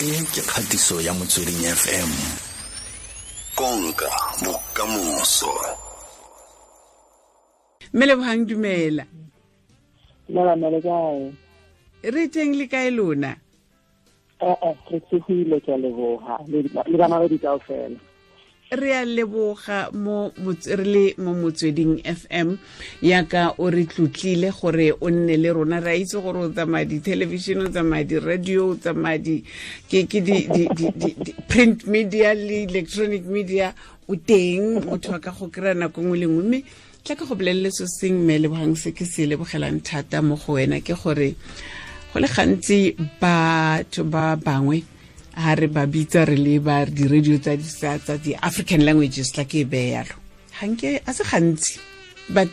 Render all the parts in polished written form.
E ke kgatiso ya Motsweding FM. Konka bokamoso. Mme Lebogang, dumela. Dumela mme, le kae? Re teng, le kae lona? Ee, re tsogile, ke a leboga, le bana ba di kaofela. Re a leboga mo re le mo Motsweding FM yaka o re tlotlile gore o nne le rona. Re a itse gore o tsamaya di-television, o tsamaya di-radio, o tsamaya di ke ke di di di print media le electronic media, o teng motho a ka go kry-a nako nngwe le nngwe. Mme tla ka go bolelele so seng, mme Lebogang, se ke se lebogelang thata mo go wena ke gore go le gantsi batho ba bangwe ha re ba bitsa re le ba di-radio tsa di-African languages, tla ke e beye yalo, ganke a se gantsi, but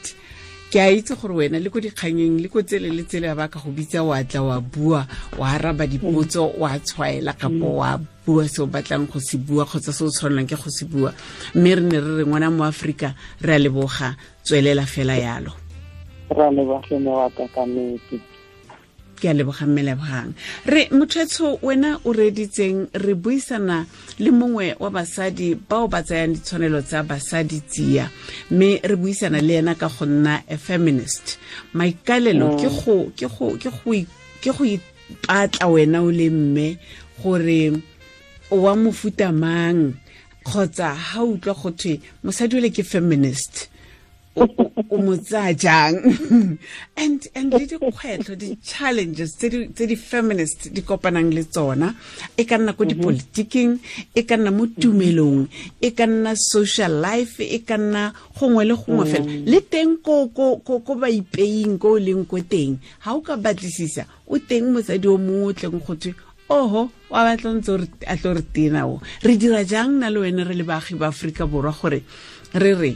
ke a itse gore wena le ko dikganyeng le ko tsele le tsele ba ka go bitsa, wa tla, wa bua, wa araba dipotso, wa tshwaela kapo wa bua se o batlang go se bua kgotsa se o tshwanelang ke go se bua. Mme re ne re re ngwana mo Aforika, re a leboga, tswelela fela yalo. Re a leboga mme wa ka, ka nnete. Ke a leboga, mme Lebogang. Re mothetsho wena o reditseng, re buisana le mongwe wa basadi bao ba tsayang ditshwanelo tsa basadi tsia, mme re buisana le ena ka go nna a feminist. Maikalelo ke go ipatla wena o le mme gore o wa mofuta mang, kgotsa ha utlwa go thwe mosadi ole ke feminist, o mo tsaya jang, and le dikgwetlho, di-challenges tse di-feminist di kopanang le tsona, e ka nna ko dipolitiking, e ka nna mo tumelong, e ka nna social life, e ka nna gongwe le gongwe fela le teng ko ba ipeing ko o leng ko teng. Ga o ka batlisisa, o teng mosadi o mongwe o tleng go thwe oho wa batla ntse a tlo re tena o. Re dira jang na le wena re le baagi ba Aforika Borwa gore re re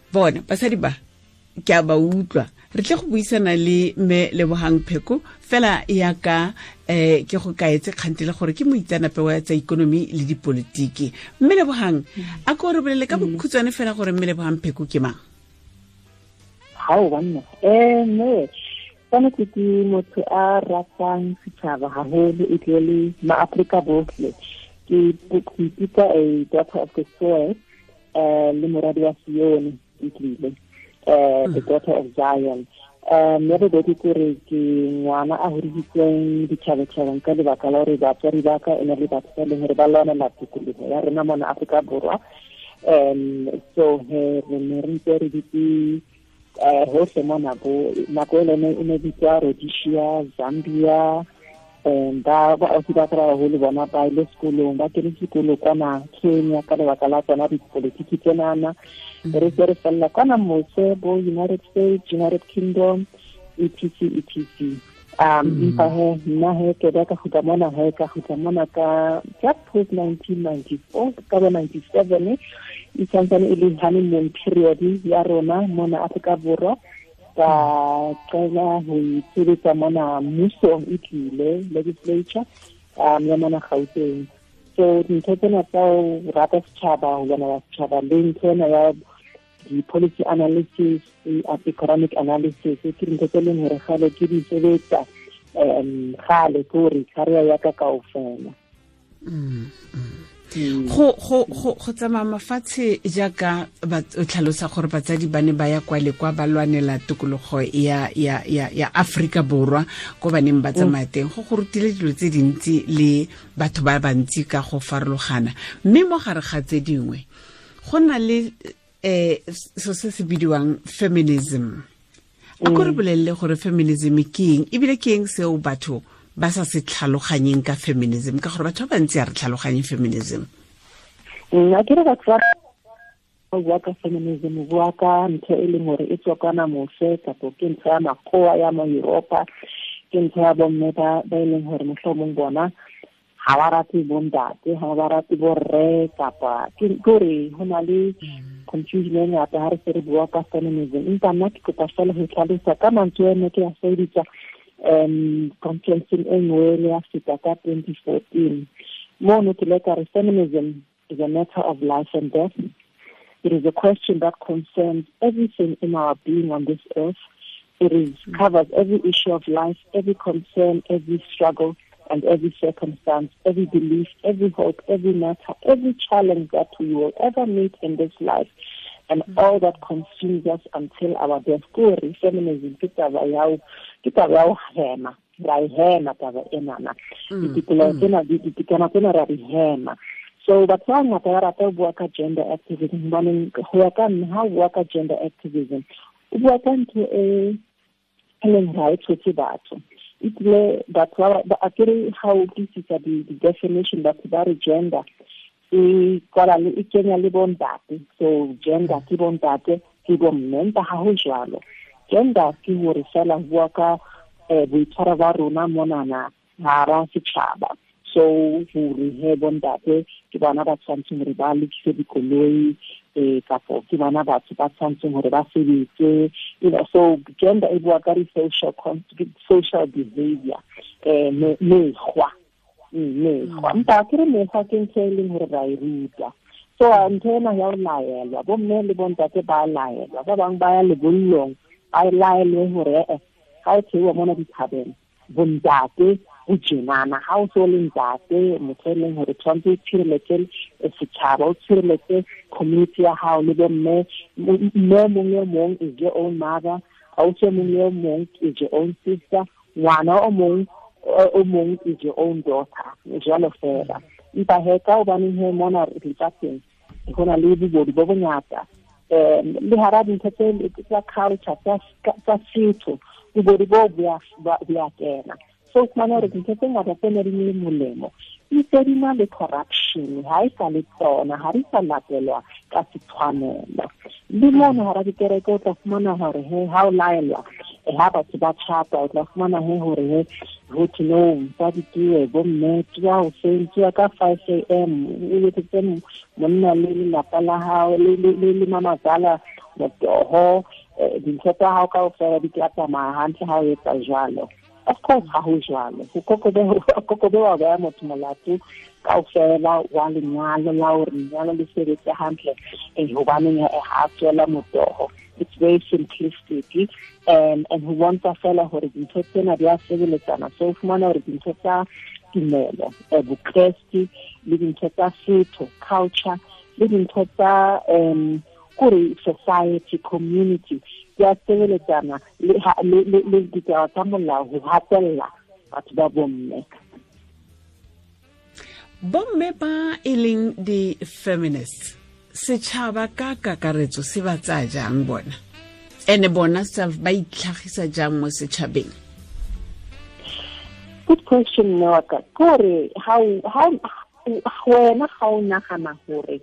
bona basadi ba ke a ba utlwa? Re tle go buisana le mme Lebogang Pheko fela yaka ke go kaetse kgantele gore ke moitseanape wa tsa ikonomi le dipolitiki. Mme Lebogang, a ko re bolele ka bokhutshwane fela gore mme Lebogang Pheko ke mang? Gao banna, mme tshwanetse ke motho a ratang setšhaba haholo, e tle le maAforika botlhe. Ke ipitsa a daughter of the soil, le moradi wa Sione, e tlile the daughter of Zion. Ya bobedi kore ke ngwana a hodisitsweng ditšhabatšhabeng ka lebaka la gore batswadi ba ka e ne le batho ba e leng gore ba lwanela tokologo ya rona mona Aforika Borwa. So he re ne re ntse re ditse hohle mona, bo nako e lene e ne bitswa Rhodesia, Zambia. Ba ausi ba ka ba baholo bona ba ile sekolong, ba kene sekolo kwana Kenya ka lebaka la tsona dipolitiki tsenana. Re se re felela kwana mose bo United States, United Kingdom, etc etc. Empa he nna he ke ba ka kgutla mona, he ka kgutla mona ka just post 1994, ka bo 97, e santsane e le honeymoon period ya rona mona Afrika Borwa. Ka qala ho itshebetsa mona mmusong, e tlile legislature ya mona Gauteng. So dintho tsena tsa ho rata setjhaba, ho lwanela setjhaba, le ntho ena ya di-policy analysis, economic analysis, ke dintho tse leng hore kgale ke di sebetsa, kgale ke hore career ya ka kaofela. Go tsamaya mafatshe jaaka o tlhalosa gore batsadi ba ne ba ya kwa le kwa ba lwanela tokologo ya Afrika Borwa, ko ba neng ba tsamaya teng, go rutile dilo tse dintsi le batho ba bantsi ka go farologana. Mme mo gare ga tse dingwe go na le so se se bidiwang feminism. A ko re bolelele gore feminism ke eng, ebile ke eng seo batho ba sa se tlhaloganyeng ka feminism, ka gore batho ba bantsi a re tlhaloganye feminism. Nna ke re batho ba bua ka feminism, bua ka ntho e leng hore e tswa kwana mose, kapo ke ntho ya makgowa ya mo Europa, ke ntho ya bomme ba e leng hore mohlomong bona ga ba rate bontate, ga ba rate borre, kapa ke kore ho na le confusion e ngata ha re se re bua ka feminism. Empa nna ke kopa fela ho tlhalosa ka mantswe ene ke a sebedisa conferenceng e nngwe le ya feta ka 2014. Mono ke le ka re feminism is a matter of life and death. It is a question that concerns everything in our being on this earth. It is covers every issue of life, every concern, every struggle. and every circumstance, every belief, every hope, every matter, every challenge that we will ever meet in this life, and all that consumes us until our death. Kore feminism ke taba ya ho hema, ra e hema taba enana. Ditokelo tsena, ditokelo tsena ra di hema. So batho ba bangata ba rata ho bua ka gender activism, hobaneng ho ya ka nna ha o bua ka gender activism, o bua ka ntho e leng ha e tshotse batho. Ebile batho ba akere ha o utlwisisa di-definition, batho ba re gender e kwala le e kenya le bontate. So gender ke bontate ke bomme, empa ha ho jwalo. Gender ke hore fela ho bua ka boitshwaro ba rona monana hara setjhaba. So hore he bontate ke bona ba tshwantseng hore ba lokise dikoloi, kapo ke bona batho ba tshwantseng hore ba sebetse, you know. So gender e bua ka di-social social behavior, mekgwa. Empa ke re mekgwa ke ntho e leng hore ra e ruta. So ntho ena ya ho laelwa, bomme le bontate ba laelwa, ba bang ba ya lebollong ba laelwe hore ha o theoha mona dithabeng bontate o tjenana, ha o so le ntate motho e leng hore tshwanetse o tshireletse setjhaba, o tshireletse community ya hao le bomme. Mme mong le mong is your own mother, ausi mong le mong is your own sister, ngwana o mong is your own daughter, jwalo fela. Empa he ka hobaneng he mona lefatsheng ho na le bobodu bo bongata, le hara dintho tsa culture tsa setho, bobodu bo bo a kena. So fumana hore dintho tse ngata tse ne di le molemo di se di na le corruption, ha e sa le tsona, ha di sa latelwa ka setshwanelo. Le mona hara dikereke o tla fumana hore he ha o laelwa, ha batho ba tjhapa, o tla fumana he hore he ho thwe no, mosadi ke bomme, tsoha hoseng, tsoha ka 5 a.m., o etsetse monna le lelapa la hao le mamazala motoho, dintho tsa hao kaofela di tla tsamaya hantle ha o etsa jwalo. Of course ha ho jwalo. Ho kokobe wa beha motho molato kaofela wa lenyalo la hore lenyalo le sebetse hantle, hobaneng ha tswela motoho. It's very simplistic, and ho bontsha fela hore dintho tsena di a sebeletsana. So o fumana hore dintho tsa tumelo, bokreste, le dintho tsa setho, culture, le dintho tsa kore society, community, di a sebeletsana le ditaba tsa molao ho hatella batho ba bomme. Bomme ba e leng di-feminists, setjhaba ka kakaretso se ba tsaya jang bona? Ene bona self ba itlhagisa jang mo setjhabeng? Good question, Noaka. Kore ha wena ha o nagana hore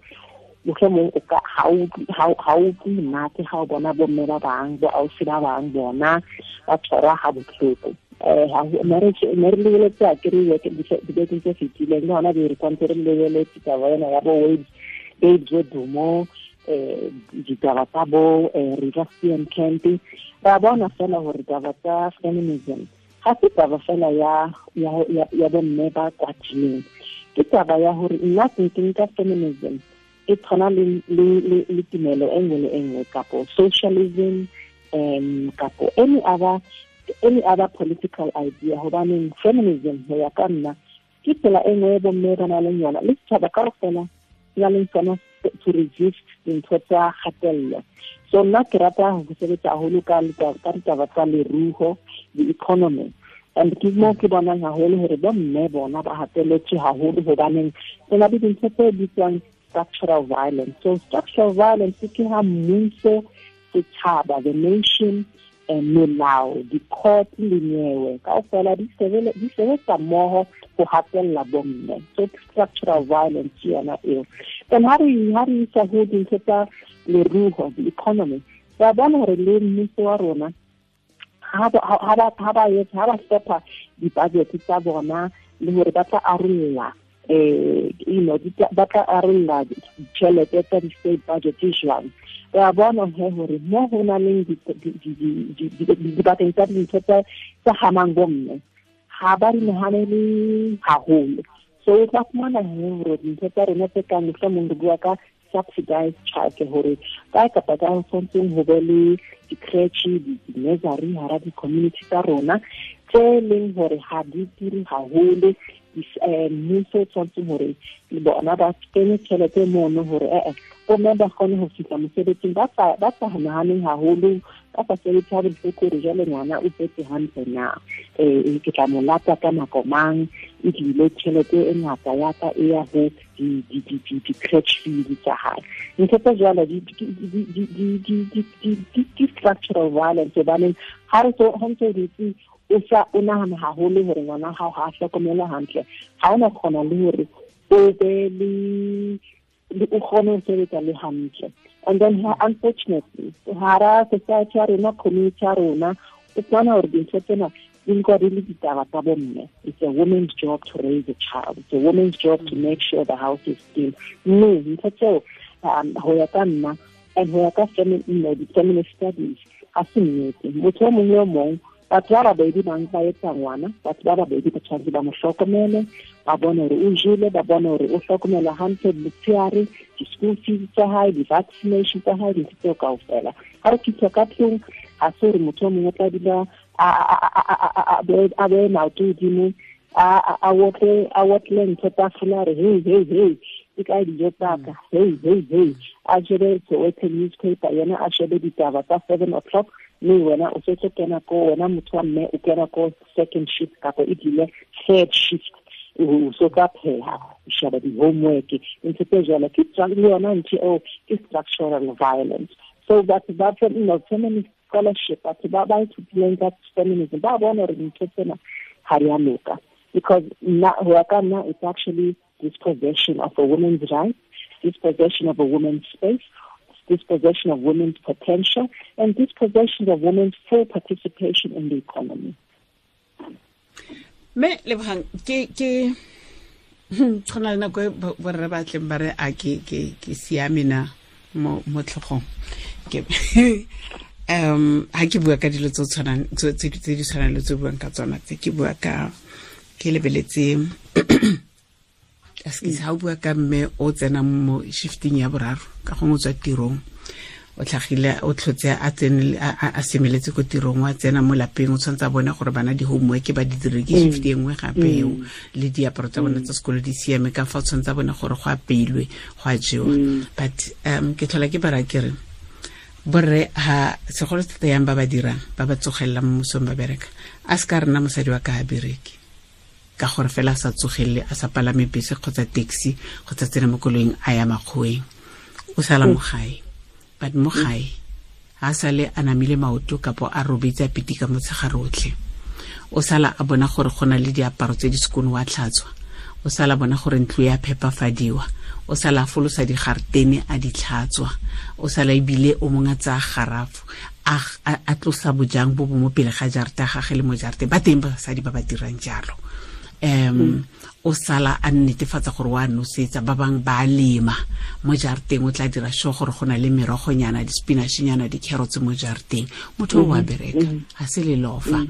mohlomong o ka ha o utlwe monate ha o bona bomme ba bang, bo ausi ba bang bona ba tshwarwa ha bohloko. Ne re lebeletse akere dibekeng tse fetileng, le hona be re kwantse re lebeletse taba ena ya bo Babes Wodumo, ditaba tsa bo Reeva Steenkamp. Ra bona fela hore taba tsa feminism ha se taba fela ya bomme ba kwatileng, ke taba ya hore nna ke nka feminism e tshwana le tumelo e nngwe le e nngwe, kapo socialism, kapo any other political idea. Hobaneng feminism ho ya ka nna ke tsela e nngwe e bomme ba nang le yona le setjhaba kaofela na leng tsona to resist dintho tsa kgatello. So nna ke rata ho sebetsa haholo ka ditaba tsa leruo, the economy, and ke mo ke bonang haholo hore bomme bona ba hatelletswe haholo, hobaneng ho na le dintho tse bitswang structural violence. So structural violence ke ha mmuso, setjhaba, the nation, melao, di-court le nyewe kaofela di sebetsa mmoho ho hatella bomme. So structural violence ke yona eo. Then ha re isa ho dintho tsa leruo, the economy, ra bona hore le mmuso wa rona ha ba hlopha di-budget tsa bona le hore ba tla arolla ba tla arolla ditjhelete tsa di-state budget jwang. Re a bona he hore mo ho na leng dibakeng tsa dintho tsa hamang bomme ha ba di nahanele haholo. So o tla fumana he hore dintho tsa rona tse kang mohlomong re bua ka subsidized childcare hore kae kapa kae ho tshwantseng ho be le di-creche, di-nursery hara di-community tsa rona tse leng hore ha di turi haholo. Mmuso o tshwantseng hore le bona ba kenye tjhelete mono hore bomme ba kgone ho fihla mosebetsing ba sa nahaneng haholo, ba sa sebetse ha bohloko hore jwale ngwana o tsetse hantle na, ke tla mo lata ka nako mang, ebile tjhelete e ngata ya ka e ya ho di-crèche fees tsa hae. Ntho tse jwalo di structural violence, hobaneng ha re so ha ntse dutse o sa o nahana haholo hore ngwana hao ha a hlokomelwa hantle, ha ona kgona le hore o be le o kgone ho sebetsa le hantle. And then unfortunately hara society ya rona, community ya rona, o fumana hore dintho tsena di nkwa di le ditaba tsa bomme. It's a woman's job to raise a child, it's a woman's job to make sure the house is clean. Mme ntho tseo ho ya ka nna and ho ya ka feminist studies ha se nnete. Motho o mong le o mong, batho ba babedi ba ba etsa ngwana, batho ba babedi ba tshwanetse ba mo hlokomele, ba bone hore o jele, ba bone hore o hlokomelwa hantle motshehare, di-school fees tsa hae, di-vaccination tsa hae, dintho tseo kaofela. Ha re fihla ka tlung, ha se hore motho o mongwe o tla dula a beye maoto hodimo, a otle ntho tafola, a re hey hey hey, ke kae dijo tsa ka, hey hey hey, a shebe Soweto newspaper, yena a shebe ditaba tsa 7 o'clock, mme wena o setse kena ko, wena motho wa mme o kena ko second shift kapa ebile third shift, o so ka pheha, o sheba di-homework, ntho tse jwalo. Ke le yona ntho eo ke structural violence. So batho ba feminist scholarship, batho ba ba ithutileng ka feminism, ba bona hore dintho tsena ha di a loka, because nna ho ya ka nna it's actually dispossession of a woman's rights, dispossession of a woman's space, dispossession of women's potential, and dispossession of women's full participation in the economy. Me Lebohang, ke tshwana le nako e borre ba tleng ba re a ke siame na mo tlhogong. Ke ha ke bua ka dilo tse tshwanang tse di tshwanang le tse buang ka tsona tse, ke bua ka ke lebeletse aske ha o bua ka mme o tsena mo shifting ya boraro, ka gongwe o tswa tirong, o tlhagile o tlhotse a tsene a semeletse ko tirong, wa tsena mo lapeng, o tshwanetse a bone gore bana di-homework ba di dire, ke shift e nngwe gape eo, le diaparo tsa bona tsa sekolo di siame, ka fa o tshwanetse a bone gore go apeilwe, go a jewa. But ke tlhola ke bara ke re borre ha segolo thata yang ba ba dirang, ba ba tsogelelang mo mosong ba bereka, a se ka rena mosadi wa ka a bereke ka gore fela a sa tsogelele, a sa palame bese kgotsa taxi kgotsa tsena mo koloing a ya makgoweng, o sala mo gae. But mo gae ha sale a namile maoto kapo a robetse a pitika motshegare otlhe, o sala a bona gore go na le diaparo tse di sekono wa tlhatswa, o sala bona gore ntlo ya phepafadiwa, o sala a folosa digartene a di tlhatswa, o sala ebile o mongwe a tsaya garafo a tlosa bojang bo bo mo pele ga jarata gage le mo jarateng. Ba teng basadi ba ba dirang jalo. O sala a netefatsa gore wa nosetsa, ba bang ba lema mo jarateng, o tla dira sure gore go na le merogonyana, di-spinach-nyana, di-carrots mo jarateng. Motho o wa bereka, ha se lelofa.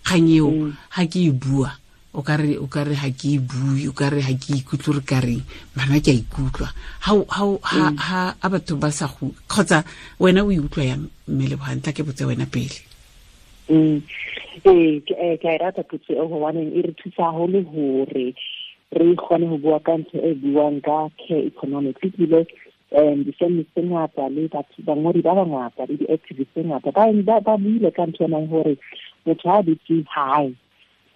Kgang eo ha ke e bua, o ka re ha ke e bue, o ka re ha ke ikutlwe, re ka reng, bana ke a ikutlwa. Ha a batho ba sa go kgotsa wena o ikutlwa yang mme Lebohang? Tla ke botse wena pele. Ee, ke a e rata potso eo, hobaneng e re thusa haholo hore re kgone ho bua ka ntho e buang ka care economics. Ebile di-feminist tse ngata le batho bangodi ba bangata le di-activist tse ngata ba buile ka ntho enang hore motho ha dutse hae,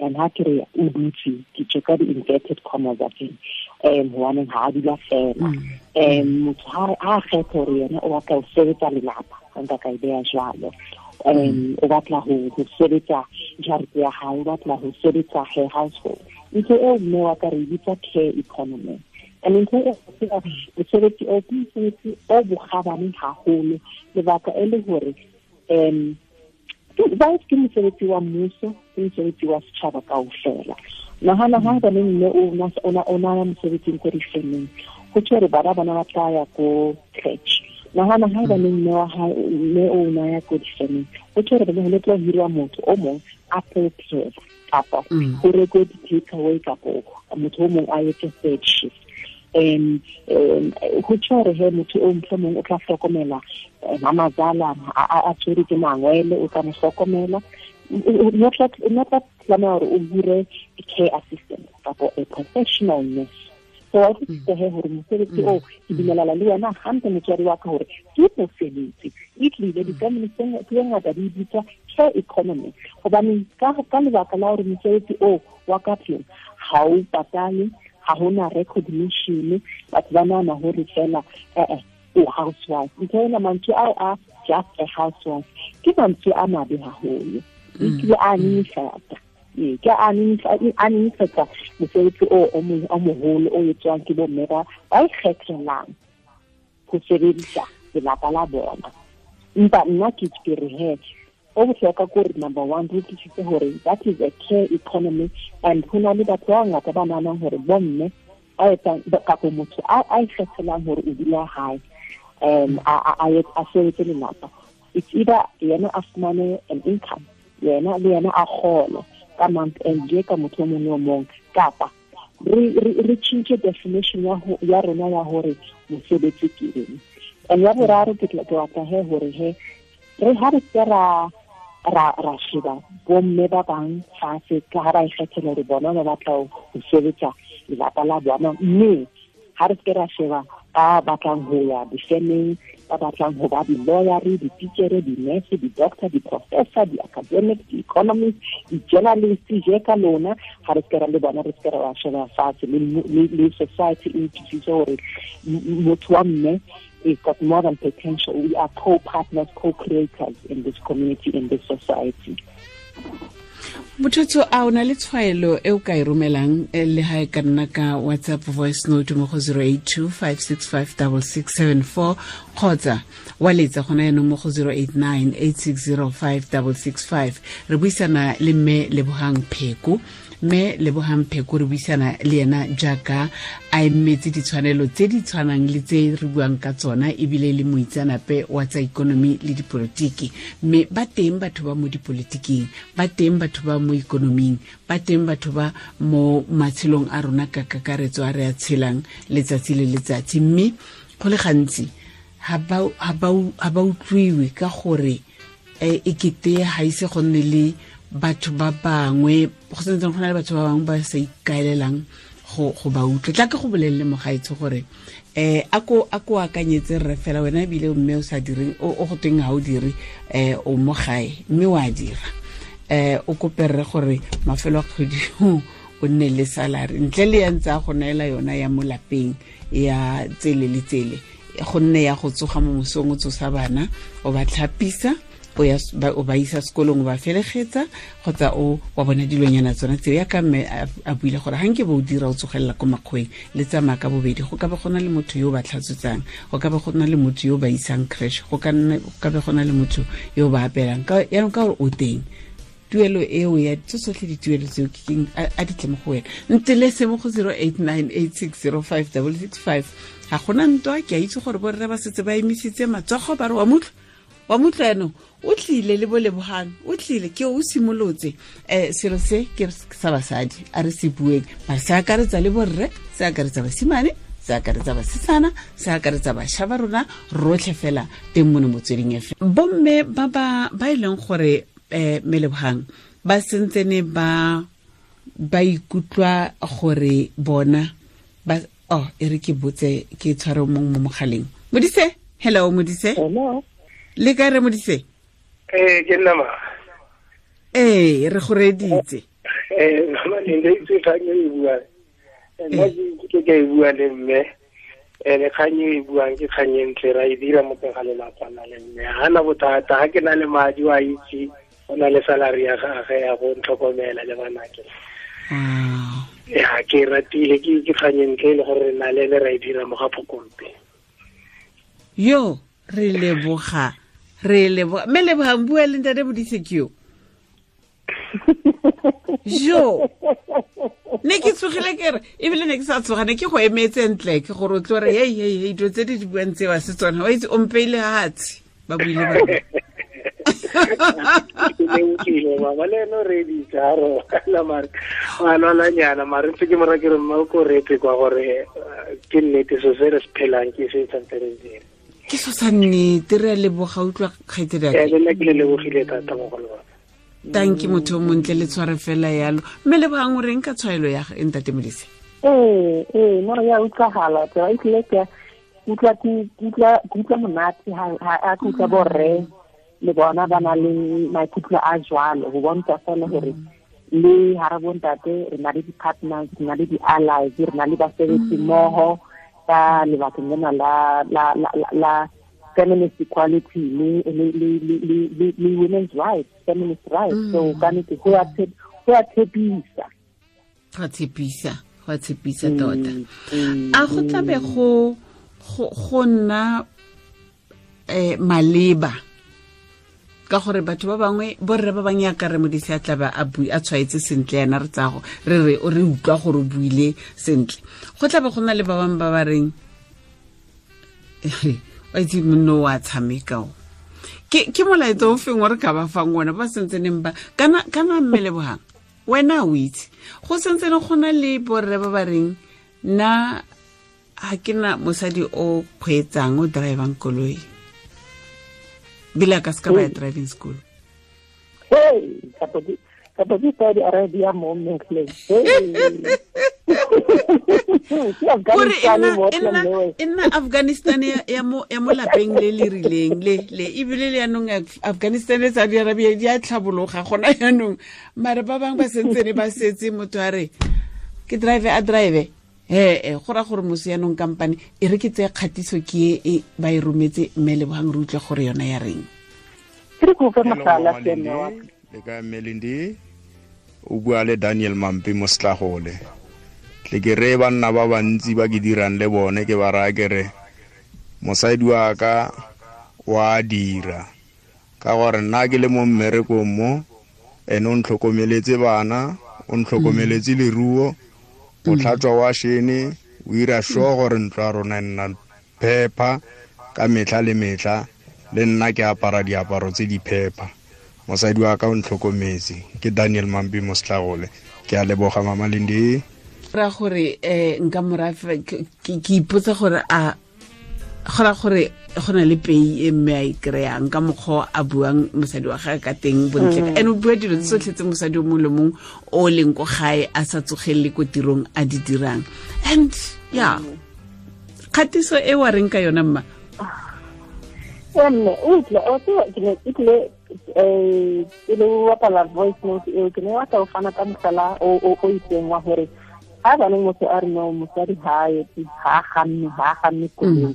and ha ke re o dutse, ke tjho ka di-inverted commas tsa teng, hobaneng ha a dula fela. Motho ha a kgetha hore yena o batla ho sebetsa lelapa, nka ka e beha jwalo, o batla ho sebetsa jarete ya hae, o batla ho sebetsa her household. Ntho eo mme wa ka re e bitsa care economy. And ntho eo mosebetsi o ke mosebetsi o bokgabane haholo, lebaka e le hore ke mosebetsi wa mmuso, ke mosebetsi wa setjhaba kaofela. Nahana ha ba mme o na mosebetsing ko difemeng, ho tjho hore bana bona ba tla ya ko crèche. Nahana ha ba mme wa hae mme o na ya ko difemeng, ho tjho hore ho tla hirwa motho o mong a prepare kapa ho rekwe di-take away, kapa motho o mong a etse third shift. Go tjho hore he motho o mohlomong o tla hlokomela mamazala a tshwere ke mangwele, o tla mo hlokomela. O tla tlameha hore o hire care assistant kapa a professional nurse. So wa utlwisisa he hore mosebetsi oo ke dumelana le wena hantle motswadi wa ka hore ke mosebetsi. E tlile di-family tse ngata di bitswa care economy, hobane ka lebaka la hore mosebetsi oo wa ka tlung ha o patale, ha hona recognition, batho ba nahana hore fela o housewife. Ntho ena, mantswe ao a just a housewife ke mantswe a mabe haholo, ebile a nyenyefatsa. Ke a nyenyefatsa mosebetsi o moholo o etswang ke bomme ba ikgethelang ho sebedisa lelapa la bona. Empa nna ke re he o bohlokwa ke hore number one re utlwisise hore that is a care economy, and ho na le batho ba bangata ba nahanang hore bomme ba etsang kapa motho a ikgethelang hore o dula hae a sebetse lelapa, it's either yena a fumane an income, yena le yena a kgole ka month end je ka motho o mong le o mong, kapa re tjhentjhe definition ya rona ya hore mosebetsi ke eng. And ya boraro ke batla he hore he re ha re se ra sheba bomme ba bang fatshe ka ha ba ikgethela hore bona ba batla ho sebetsa lelapa la bona, mme ha re se ra sheba ba batlang ho ya difemeng, ba batlang ho ba di-lawyer, di-teacher, di-nurse, di-doctor, di-professor, di-academic, di-economist, di-journalist je ka lona, ha re se ra le bona, re se ra sheba fatshe le society e utlwisise hore motho wa mme is got more than potential. We are co-partners, co-creators in this community, in this society. Motho a o na le tshwaelo e o ka e romelang le ha e ka nna ka WhatsApp voice note mo go 082 565 6674 kgotsa wa letsa gona yanong mo go 089 8605 665. Re buisana le mme Lebohang Pheko. Mme Lebohang Pheko re buisana le yena jaaka a emetse ditshwanelo tse di tshwanang le tse re buang ka tsona, ebile le moitseanape wa tsa ikonomi le dipolotiki. Mme ba teng batho ba mo dipolotiking, ba teng batho ba mo ikonoming, ba teng batho ba mo matshelong a rona ka kakaretso a re a tshelang letsatsi le letsatsi. Mme go le gantsi ha ba utlwiwe ka gore e kete ha ise go nne le batho ba bangwe, go sentse go na le batho ba bangwe ba sa ikaelelang go ba utlwe. Tla ke go bolelele mogaetsho gore a ko akanyetse rre fela wena ebile mme o sa direng, o go teng ha o dire, o mo gae mme wa dira, o kope rre gore mafelo a kgwedi o nne le salary ntle le ya ntse a go neela yona ya mo lapeng ya tsele le tsele, go nne ya go tsoga mo mosong o tsosa bana o ba tlhapisa, o ba isa sekolong, o ba felegetsa, kgotsa o wa bona dilonyana tsona tseo. Ya ka mme a buile gore ga nke bo o dira o tsogelela ko makgweng le tsamaya ka bobedi, go ka be go na le motho yo o ba tlhatswetsang, go ka be go na le motho yo o ba isang creche, go ka be go na le motho yo o ba apelang. Yaanong ka gore o teng, tuelo eo ya tso tsotlhe dituelo tseo ke keng a di tle mo go wena. Ntelese mo go 089 8605 665. Ga gona ntwa, ke a itse gore borre ba setse ba emisitse matsogo ba re wa mutlwa yaanong o tlile le bo Lebohang, o tlile ke o simolotse. Selo se ke sa basadi a re se bueng, mare se akaretsa le borre, se akaretsa basimane, se akaretsa basetsana, se akaretsa bašwa ba rona rotlhe fela teng mono Motsweding FM. Bomme ba ba e leng gore mme Lebohang ba sentsene ba ikutlwa gore bona ba e re ke botse ke tshware mong mo mogaleng. Modise, hello Modise. Hello. Le kae re Modise? Ke nna ma. Re go reditse. Mama le ntse itse kgang e buang. Nna ke ke e bua le mme. Le kgang e buang ke kgang e ntle, ra e dira mo teng ga lelapa na le mme. Ha na bothata, ha ke na le madi wa itse, o na le salary ya gagwe ya go ntlhokomela le banake. Ya ke ratile ke kgang e ntle le gore re na le ene ra e dira mo ga Phokompe. Yo re leboga. Re leboga. Mme Lebohang, bua le ntate Modise ke yo. Jo ne ke tsogile ke re ebile ne ke sa tsoga, ne ke go emetse ntle ke gore o tlo re hei hei hei dilo tse di buang tseo se tsona, wa itse o mpeile hatshe ba buile ba. Le utlwile mama le ene o reeditse a robala mare a lwalanyana mare ntse ke mora ke re mma o ko reetse kwa gore ke nnete so se re se phelang ke se tshwanetse re dire. Ke so sa nnete re a leboga utlwa kgaitsedi ake. Le nna ke le lebogile thata mogolo wa ka. Tanki motho o montle le tshware fela yalo. Mme Lebogang o reng ka tshwaelo ya ntate Modise? Ee, no ya utlwagala tsela e tlile ke utlwa monate ha ke utlwa borre le bona ba na le maikutlo a jwalo go bontsha fela gore le ha re bontate re na le di-partners, re na le di-allies, re na le basebetsi mmoho ka lebakeng lena la feminist equality le women's rights, feminist rights. So ka nnete go a tshepisa. Go a tshepisa tota. A go tlabe go nna maleba ka gore batho ba bangwe borre ba bangwe ya ka re Modise a tlabe a tshwaetse sentle yana re tsago re re o re utlwa gore o buile sentle. Go tlabe go na le ba bangwe ba ba reng wa itse monno wa tshameka o. Ke molaetsa o feng o re ka ba fang ona ba sentseneng ba kana mme Lebogang wena o itse go sentsene go na le borre ba ba reng nna ha ke na mosadi o kgweetsang o drivang koloi bila ka ska ba ya driving school. Hey, kapo di Saudi Arabia mo mmetleng. Gore e nna Afghanistan ya mo lapeng le le rileng le ebile le yanong Afghanistan le Saudi Arabia di a tlhabologa gona yanong mare ba bangwe ba sentsene ba setse motho a re ke drive a drive he go ra gore mosi yanong kampane e re ke tseye kgatiso ke e ba e rometse mme Lebogang re utlwe gore yona ya reng. Ke go fa mohlala seno wa le ka Melindi o bua le Daniel Mampi mo Setlagole. Tle ke re banna ba bantsi ba ke dirang le bone ke ba raya ke re mosadi wa ka wa dira ka gore nna ke le mo mmerekong mo ene o ntlhokomeletse bana o ntlhokomeletse leruo o tlhatswa wa shene o ira sure gore ntlo ya rona e nna phepa ka metlha le metlha le nna ke apara diaparo tse di phepa. Mosadi wa ka o ntlhokometse. Ke Daniel Mampi mo Setlagole. Ke a leboga mama Lindi. Ra gore nka morafe ke ipotsa gore a gora gore go na le pei e mme a e kry-ang ka mokgwa a buang mosadi wa gagwe ka teng bontle and o bua dilo tsotlhe tse mosadi o mongwe le mongwe o leng ko gae a sa tsogelele ko tirong a di dirang. And yeah, kgatiso e wa reng ka yona mma? Mme utlwe o ke ne e le bapala voice note eo ke ne wa tla o fana ka mohlala o itseng wa gore ha baneng motho a re no mosadi ha etse ha ganne koloi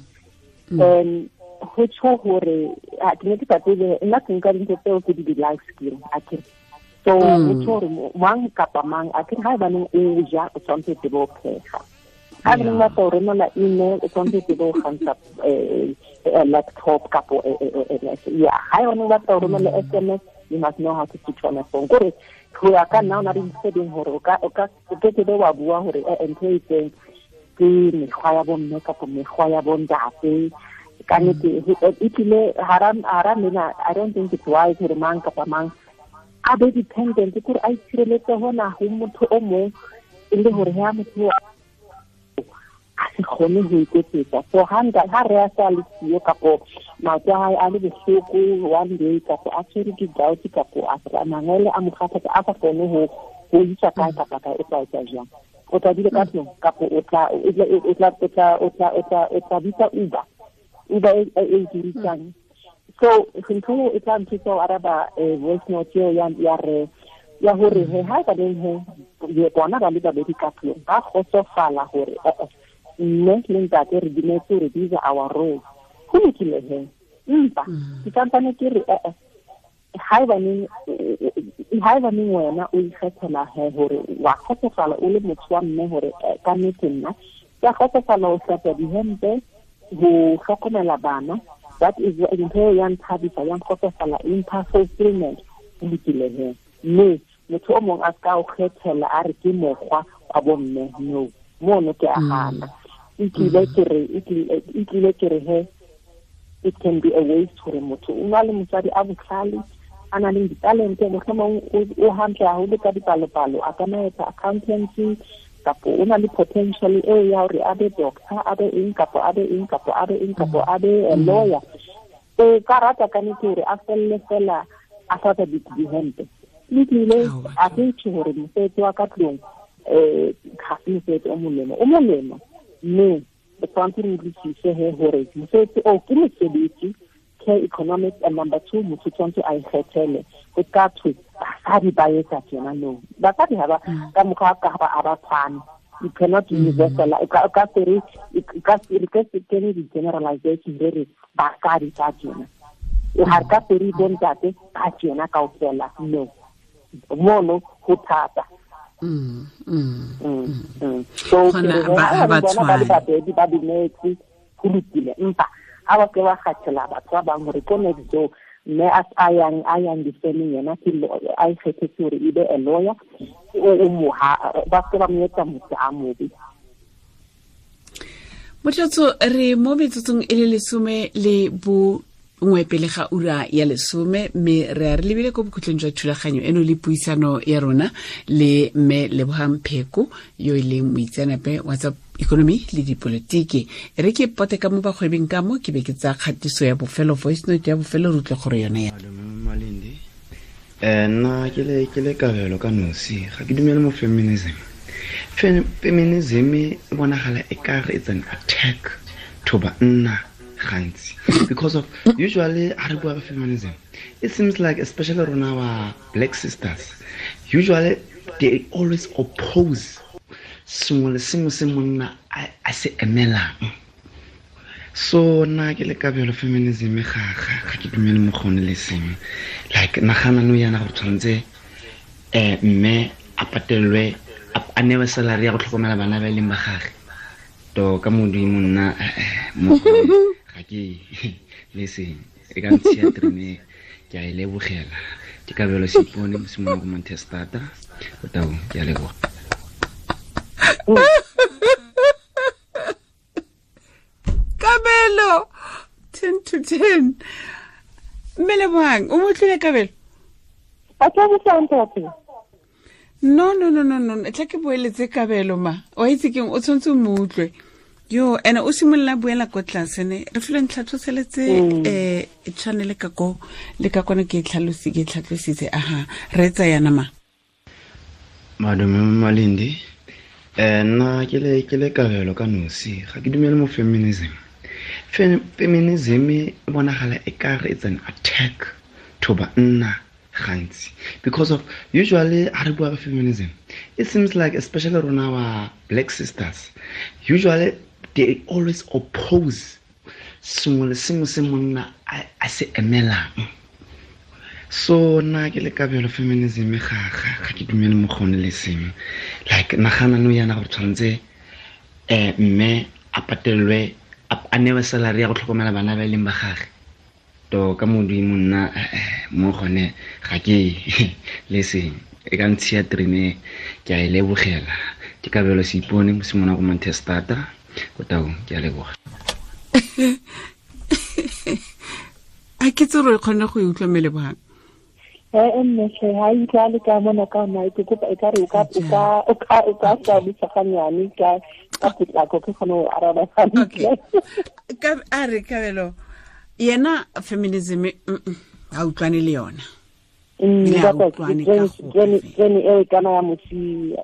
ho tjho hore ke ne ke sa tsebe nna ke nka dintho tseo ke di life skill akere. So ho tjho hore mang kapa mang akere ha baneng o ja o tshwanetse tsebe o pheha, ha baneng ba tla o romela email o tshwanetse tsebe o kgantsha laptop kapo ya ha yone ba tla o romela SMS you must know how to switch on a phone. Kore ho ya ka nna o na le tse ding hore o ka ke be wa bua hore ntho e itseng ke mekgwa ya bomme kapa mekgwa ya bontate. Ka nnete e tlile hara mena I don't think it's wise hore mang kapa mang a be dependent kore a itshireletse hona ho motho o mong e le hore ha motho a se kgone ho iketsetsa. So ha re a sa le siyo kapo maoto a hae a le bohloko one day kapo a tshwere ke gout kapo a mangwele a mo kgathatsa a sa kgone ho isa kae kapa kae o tla etsa jwang? O tla dula ka tlung kapo o tla bitsa Uber e dirisang. So ntho e tla nthusa ho araba voice note eo ya re ya hore he ha ba leng he bona ba le babedi ka tlung ba kgotsofala hore mme le ntate re dumetse hore these are our roles. Ho lokile he empa ke santsane ke re haebaneng wena o ikgethela he hore wa kgotsofala o le motho wa mme hore ka nnete nna ke a kgotsofala ho hlatswa dihempe ho hlokomela bana, that is ntho ya nthabisa ya nkgotsofala e mpha fulfillment. Ho lokile he mme motho o mong a ska o kgethela a re ke mokgwa wa bomme no mono ke a hana. E tlile ke re he it can be a waste hore motho o na le mosadi a botlhale a nang le ditalente, mohlomong o hantle haholo ka dipalopalo, a ka nna etsa accountancy, kapo o na le potential eo ya hore a be doctor, a be eng kapo a be eng kapo a be eng kapo a be a lawyer. O ka rata ka nnete hore a felle fela a hlatswa dihempe. Lokile, a ke tjho hore mosebetsi wa ka tlung ga se mosebetsi o molemo, o molemo, mme re tshwanetse re utlwisise he hore mosebetsi oo ke mosebetsi, care economics, and number two, motho tshwanetse a ikgethele. Ho ka thwe basadi ba etsa tjena, no, basadi ha ba ka mokgwa ka ba a ba tshwane. You cannot universal, o ka se re ka se kene di-generalization re re basadi ba tjena, ha re ka se re bontate ba tjena kaofela, no, mono ho thata. So ba bona ba le babedi ba dumetse, ho lokile, empa ha ba ke ba kgathela batho ba bang hore ko next door mme a yang difemeng yena ke a ikgethetse hore e be a lawyer, o moha ba se ba mo etsa motho a mobe. Motlatso, re mo metsotsong e le 11 pele ga ura ya 10, mme re a re lebile ko bokhutlong jwa thulaganyo eno le puisano ya rona le mme Lebohang Pheko yo e leng moitseanape wa tsa ikonomi le dipolotiki. E re ke pote ka mo bagwebing ka mo ke be ke tsa kgatiso ya bofelo, voice note ya bofelo, re utlwe gore yone ya Malindi. Nna ke le kabelo ka nosi, ga ke dumele mo feminism. Feminism e bonagala e kare it's an attack to banna gantsi, because of usually ha re bua ka feminism, it seems like especially rona ba black sisters, usually they always oppose sengwe le sengwe se monna a se emelang. So nna ke le kabelo feminism ga ke dumele mo gone le sengwe. Like nagana no yana gore tshwanetse mme a patelwe a newe salary ya go tlhokomela bana ba e leng ba gagwe. To ka modimo nna mo ga ke le seng e ka ntshiya terene, ke a e lebogela. Ke kabelo Seipone mosimane ko Montestata, o tau, ke a leboga. Kabelo 10 to 10. Mme Lebohang, o mo tlile Kabelo? A tla botsa ntate. No, tla ke boeletse Kabelo ma. O itse keng, o tshwanetse o mo utlwe. Yo, ene o simolola buela ko tlase ne. Re filwe ntlhatlhoseletse channel ka ko le ka kone ke tlhalosi ke tlhatlositse aha. Re tsa yana ma. Madume Malindi. Nna ke le kabelo ka nosi, ga ke dumele mo feminism. Feminism e bonagala e kare it's an attack to banna gantsi, because of usually ha re bua ka feminism, it seems like especially rona ba black sisters, usually they always oppose sengwe le sengwe se monna a se emelang. So nna ke le kabelo feminism ga ke dumele mo gone le sengwe. Like nagana no yana gore tshwanetse mme a patelwe a newe salary ya go tlhokomela bana ba e leng ba gagwe. To ka modimo nna mo gone ga ke le seng e ka ntshiya terene, ke a e lebogela. Ke kabelo Seipone mosimane ko Montestata, o tau, ke a leboga. A ke tse re kgone go e utlwa mme Lebohang? Mme hle, ha e utlwale ka mona ka nna, ke kopa ekare o ka hlalosa ganyane ka potlako ke kgone ho araba hantle. Okay. A re Kabelo, yena feminism ha utlwane le yona. Trene eo e kana ya mosia.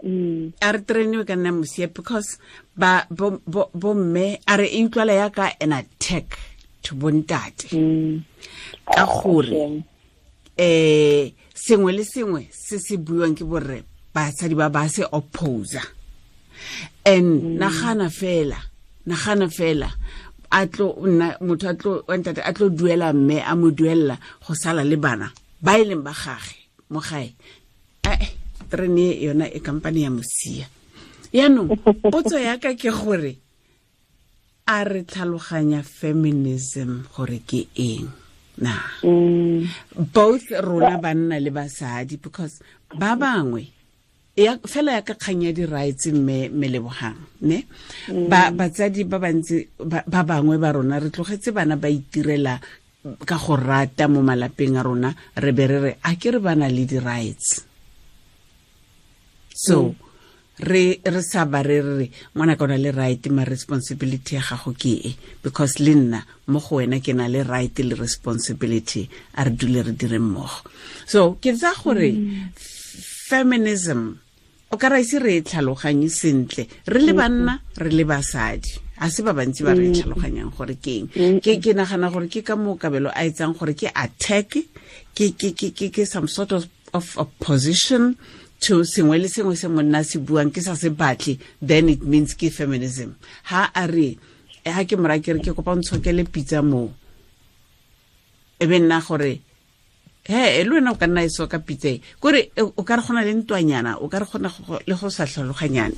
A re trene eo e kana ya mosia because ba bo mme a re e utlwala ya ka an attack to bontate. Ka gore sengwe le sengwe se se buiwang ke borre basadi ba ba se opposer. And nagana fela a tlo nna motho a tlo ntate a tlo duela mme a mo duella go sala le bana ba e leng ba gage mo gae. Trene yona e company ya mosia. Yaanong potso ya ka ke gore a re tlhaloganya feminism gore ke eng na? Both rona banna le basadi, because ba bangwe ya fela ya ka kgang ya di-rights mme Lebohang ne ba batsadi ba bantsi ba bangwe ba rona re tlogetse bana ba itirela ka go rata mo malapeng a rona re be re re a ke re bana le di rights. So re sa ba re re ngwana ka ona le right ma responsibility ya gago ke e, because le nna mo go wena ke na le right le responsibility, a re dule re dire mmogo. So ke tsa gore feminism o ka ra ise re e tlhaloganye sentle re le banna re le basadi, a se ba bantsi ba re tlhaloganyang gore ke eng. Ke nagana gore ke ka moo Kabelo a etsang gore ke attack, ke some sort of opposition to sengwe le sengwe se monna se buang ke sa se batle, then it means ke feminism. Ha a re ha ke mora ke re ke kopa ntshokele pitsa mo, e be nna gore he le wena o ka nna e soka pitsa e, kore o ka re gona le ntwanyana, o ka re gona le go sa tlhaloganyane.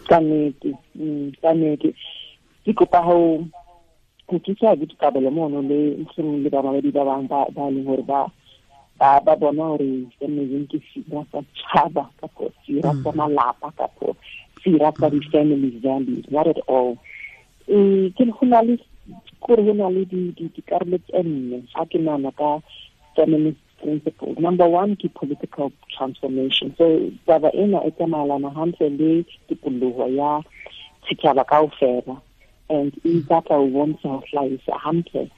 Ka nnete ke kopa ho thusa Kabelo mono le ntlheng le bamamedi ba bang ba leng hore ba bona hore feminism ke sera sa tšhaba kapo sera sa malapa kapo sera sa di-family values, not at all. Ke go na le kore go na le dikarolo tse nne ga ke nahana ka feminist principles. Number one ke political transformation. So taba ena e tsamaelana hantle le tikoloho ya setjhaba kaofela, and e batla ho bontsha ho hlahisa hantle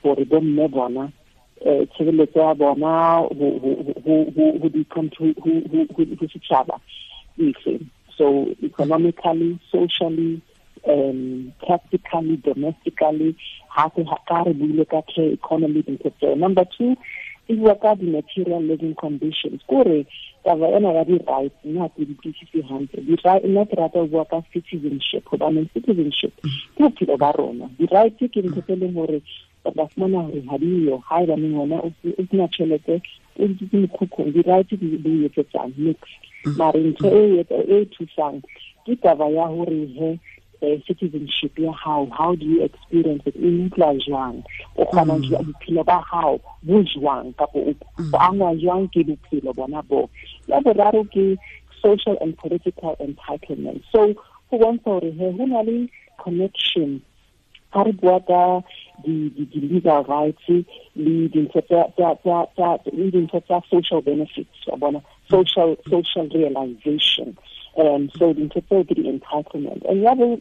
hore bomme bona tshireletso ya bona ho setjhaba efe. So economically, socially, practically, domestically, hape ka re buile ka care economy dintho tseo. Number two e bua ka di-material living conditions, kore taba ena ya di-rights nna ke di utlwisise hantle. Nna ke rata ho bua ka citizenship, hobane citizenship ke bophelo ba rona. Di-rights ke ntho tse leng hore ba fumana hore ha diyo, ha ebaneng wena o sena tjhelete, o dutse mekhukhung, di-rights di etsetsang nix. Mare ntho e thusang ke taba ya hore he citizenship ya hao, how do you experience it, e utlwa jwang, o kgona jwang bophelo ba hao bo jwang, kapo o angwa jwang ke bophelo bona bo. Ya boraro ke social and political entitlement. So ho bontsha hore he ho na le connection ha re bua ka di-legal rights le dintho tsa social benefits, wa bona, social realization. So dintho tseo ke di-entitlement. And ya ho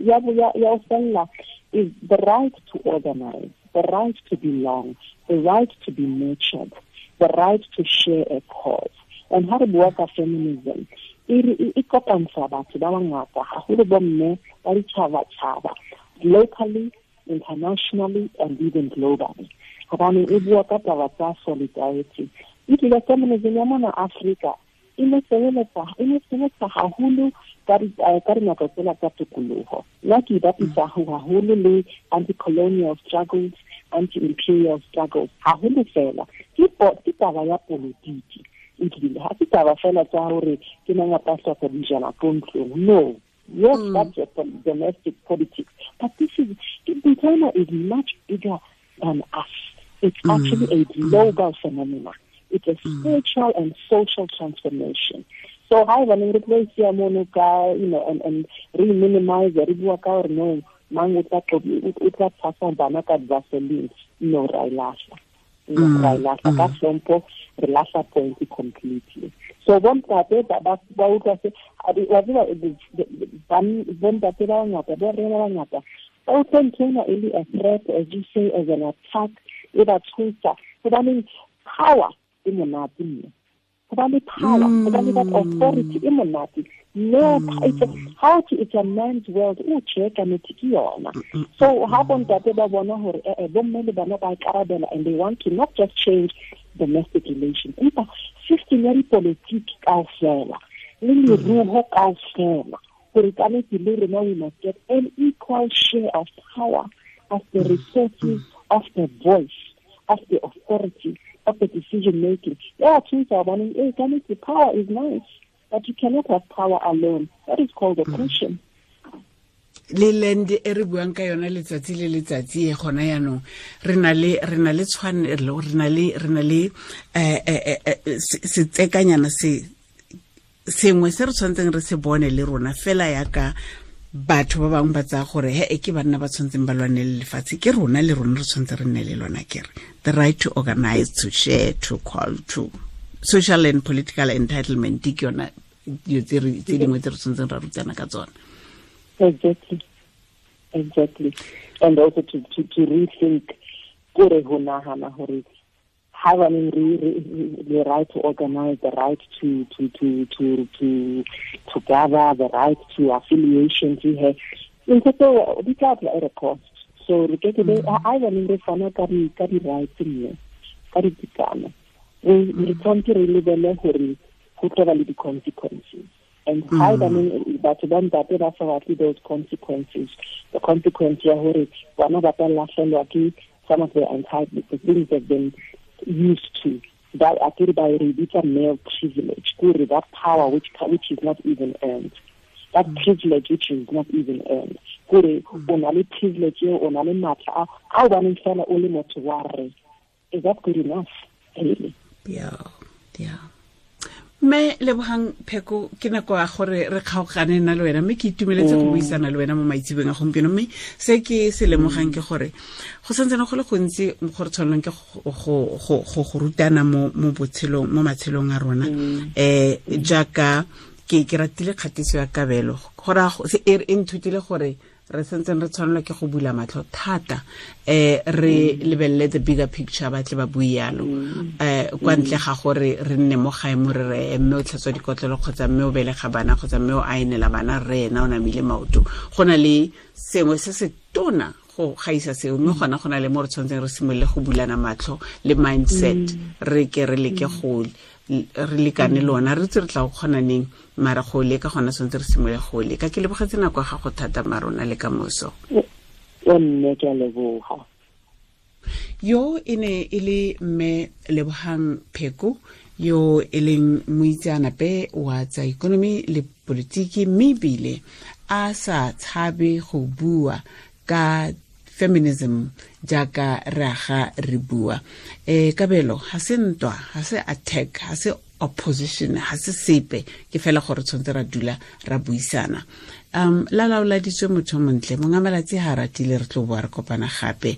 fella is the right to organize, the right to belong, the right to be nurtured, the right to share a cause. And ha re bua ka feminism, e kopantsha batho ba bangata, haholo bomme ba ditjhabatjhaba, locally, internationally, and even globally. Hobane e bua ka taba tsa solidarity. Ebile feminism ya mona Afrika e ne sebetsa haholo ka dinako tsela tsa tokoloho. Nna ke bapisa haholo le anti-colonial struggles, anti-imperial struggles, haholo fela. Ke taba ya politiki. Ebile ha se taba fela tsa hore ke mang a tla hloka dijana ko ntlong. No. Yes, that's a domestic politics. But this is, China is much bigger than us. It's actually a global phenomenon. It's a spiritual and social transformation. So, hi, when we replace you know, and re-minimize, re-bua ka hore no, mang o tla tshasa bana ka Vaseline. No, ra e lahla. Ra e lahla. Ka hlompho, re lahla point completely. So, bontate ba utlwa se, wa tseba, bontate ba bangata, bo rena ba bangata, ba utlwa ntho ena e le a threat, as you say, as an attack, e ba tshosa. Hobaneng power e monate mme. Hobane power, hobane that authority e monate. No, it's a man's world. O tjhe ka nnete ke yona. So ha bontate ba bona hore bomme le bana ba ikarabela, and they want to not just change domestic relations, empa system ya dipolitiki kaofela le leruo kaofela, hore ka nnete le rona we must get an equal share of power, of the resources, of the voice, of the authority, of the decision making. Yeah, the power is nice, but you cannot have power alone. That is called oppression. Le land e re buang ka yona letsatsi le letsatsi e gona yanong re na le tshwanelo, re na le setsekanyana se sengwe se re tshwanetseng re se bone le rona fela yaka Batho ba bangwe ba tsaya gore he e ke banna ba tshwanetseng ba lwane le lefatshe, ke rona le rona re tshwanetse re nne le lona. Kere the right to organize, to share, to call, to social and political entitlement, ke yona dilo tse dingwe tse re tshwanetseng ra rutana ka tsona. Exactly. And also to rethink kore ho nahana hore having the right to organize, the right to gather, the right to affiliation, ntho tseo di tla tla at a cost. So re ke be a baneng re fana ka di rights mme ka ditekano, re tshwanetse re lebele gore go tla ba le di-consequences. And how batho ba ntate ba sa batle those consequences, the consequence ya hore bana ba tla lahlelwa ke some of the entitlements, the things they've been used to, that akere ba re bitsa male privilege, kore that power which is not even earned, that privilege which is not even earned, kore o na le privilege eo, o na le matla a o baneng fela o le motho wa rre. Is that good enough, really? Yeah. Mme Lebohang Pheko, ke nako ya gore re kgaogane nna le wena, mme ke itumeletse go buisana le wena mo maitsebeng a gompieno. Mme se ke se lemogang ke gore go santsane go le gontsi go re tshwanelwang ke go rutana mo botshelong, mo matshelong a rona. Jaaka ke ratile kgatiso ya Kabelo, gore e nthutile gore re santseng re tshwanelwa ke go bula matlho thata, re lebelele the bigger picture, ba tle ba bue yalo, kwa ntle ga gore re nne mo gae mo re re mme o tlhatswa dikotlelo kgotsa mme o belega bana kgotsa mme o aenela bana, re ena o namile maoto. Go na le sengwe se se tona go gaisa seo, mme gona go na le mo re tshwanetseng re simolole go bulana matlho le mindset, re ke re leke go re lekane lona, re tse re tla go kgona neng, mara go leka gona tshwanetse re simole go leka. Ke lebogetse nako ya gago thata, marona le ka moso. Nne ke a leboga. Yo e ne e le mme Lebohang Pheko, yo e leng moitseanape wa tsa ikonomi le politiki, mme ebile a sa tshabe go bua ka feminism jaaka re aga re bua. Kabelo ha se ntwa, ha se attack, ha se opposition, ha se sepe, ke fela gore tshwanetse ra dula ra buisana. La laoladitswe motho montle, monga malatsi ha ratile, re tlo boa re kopana gape.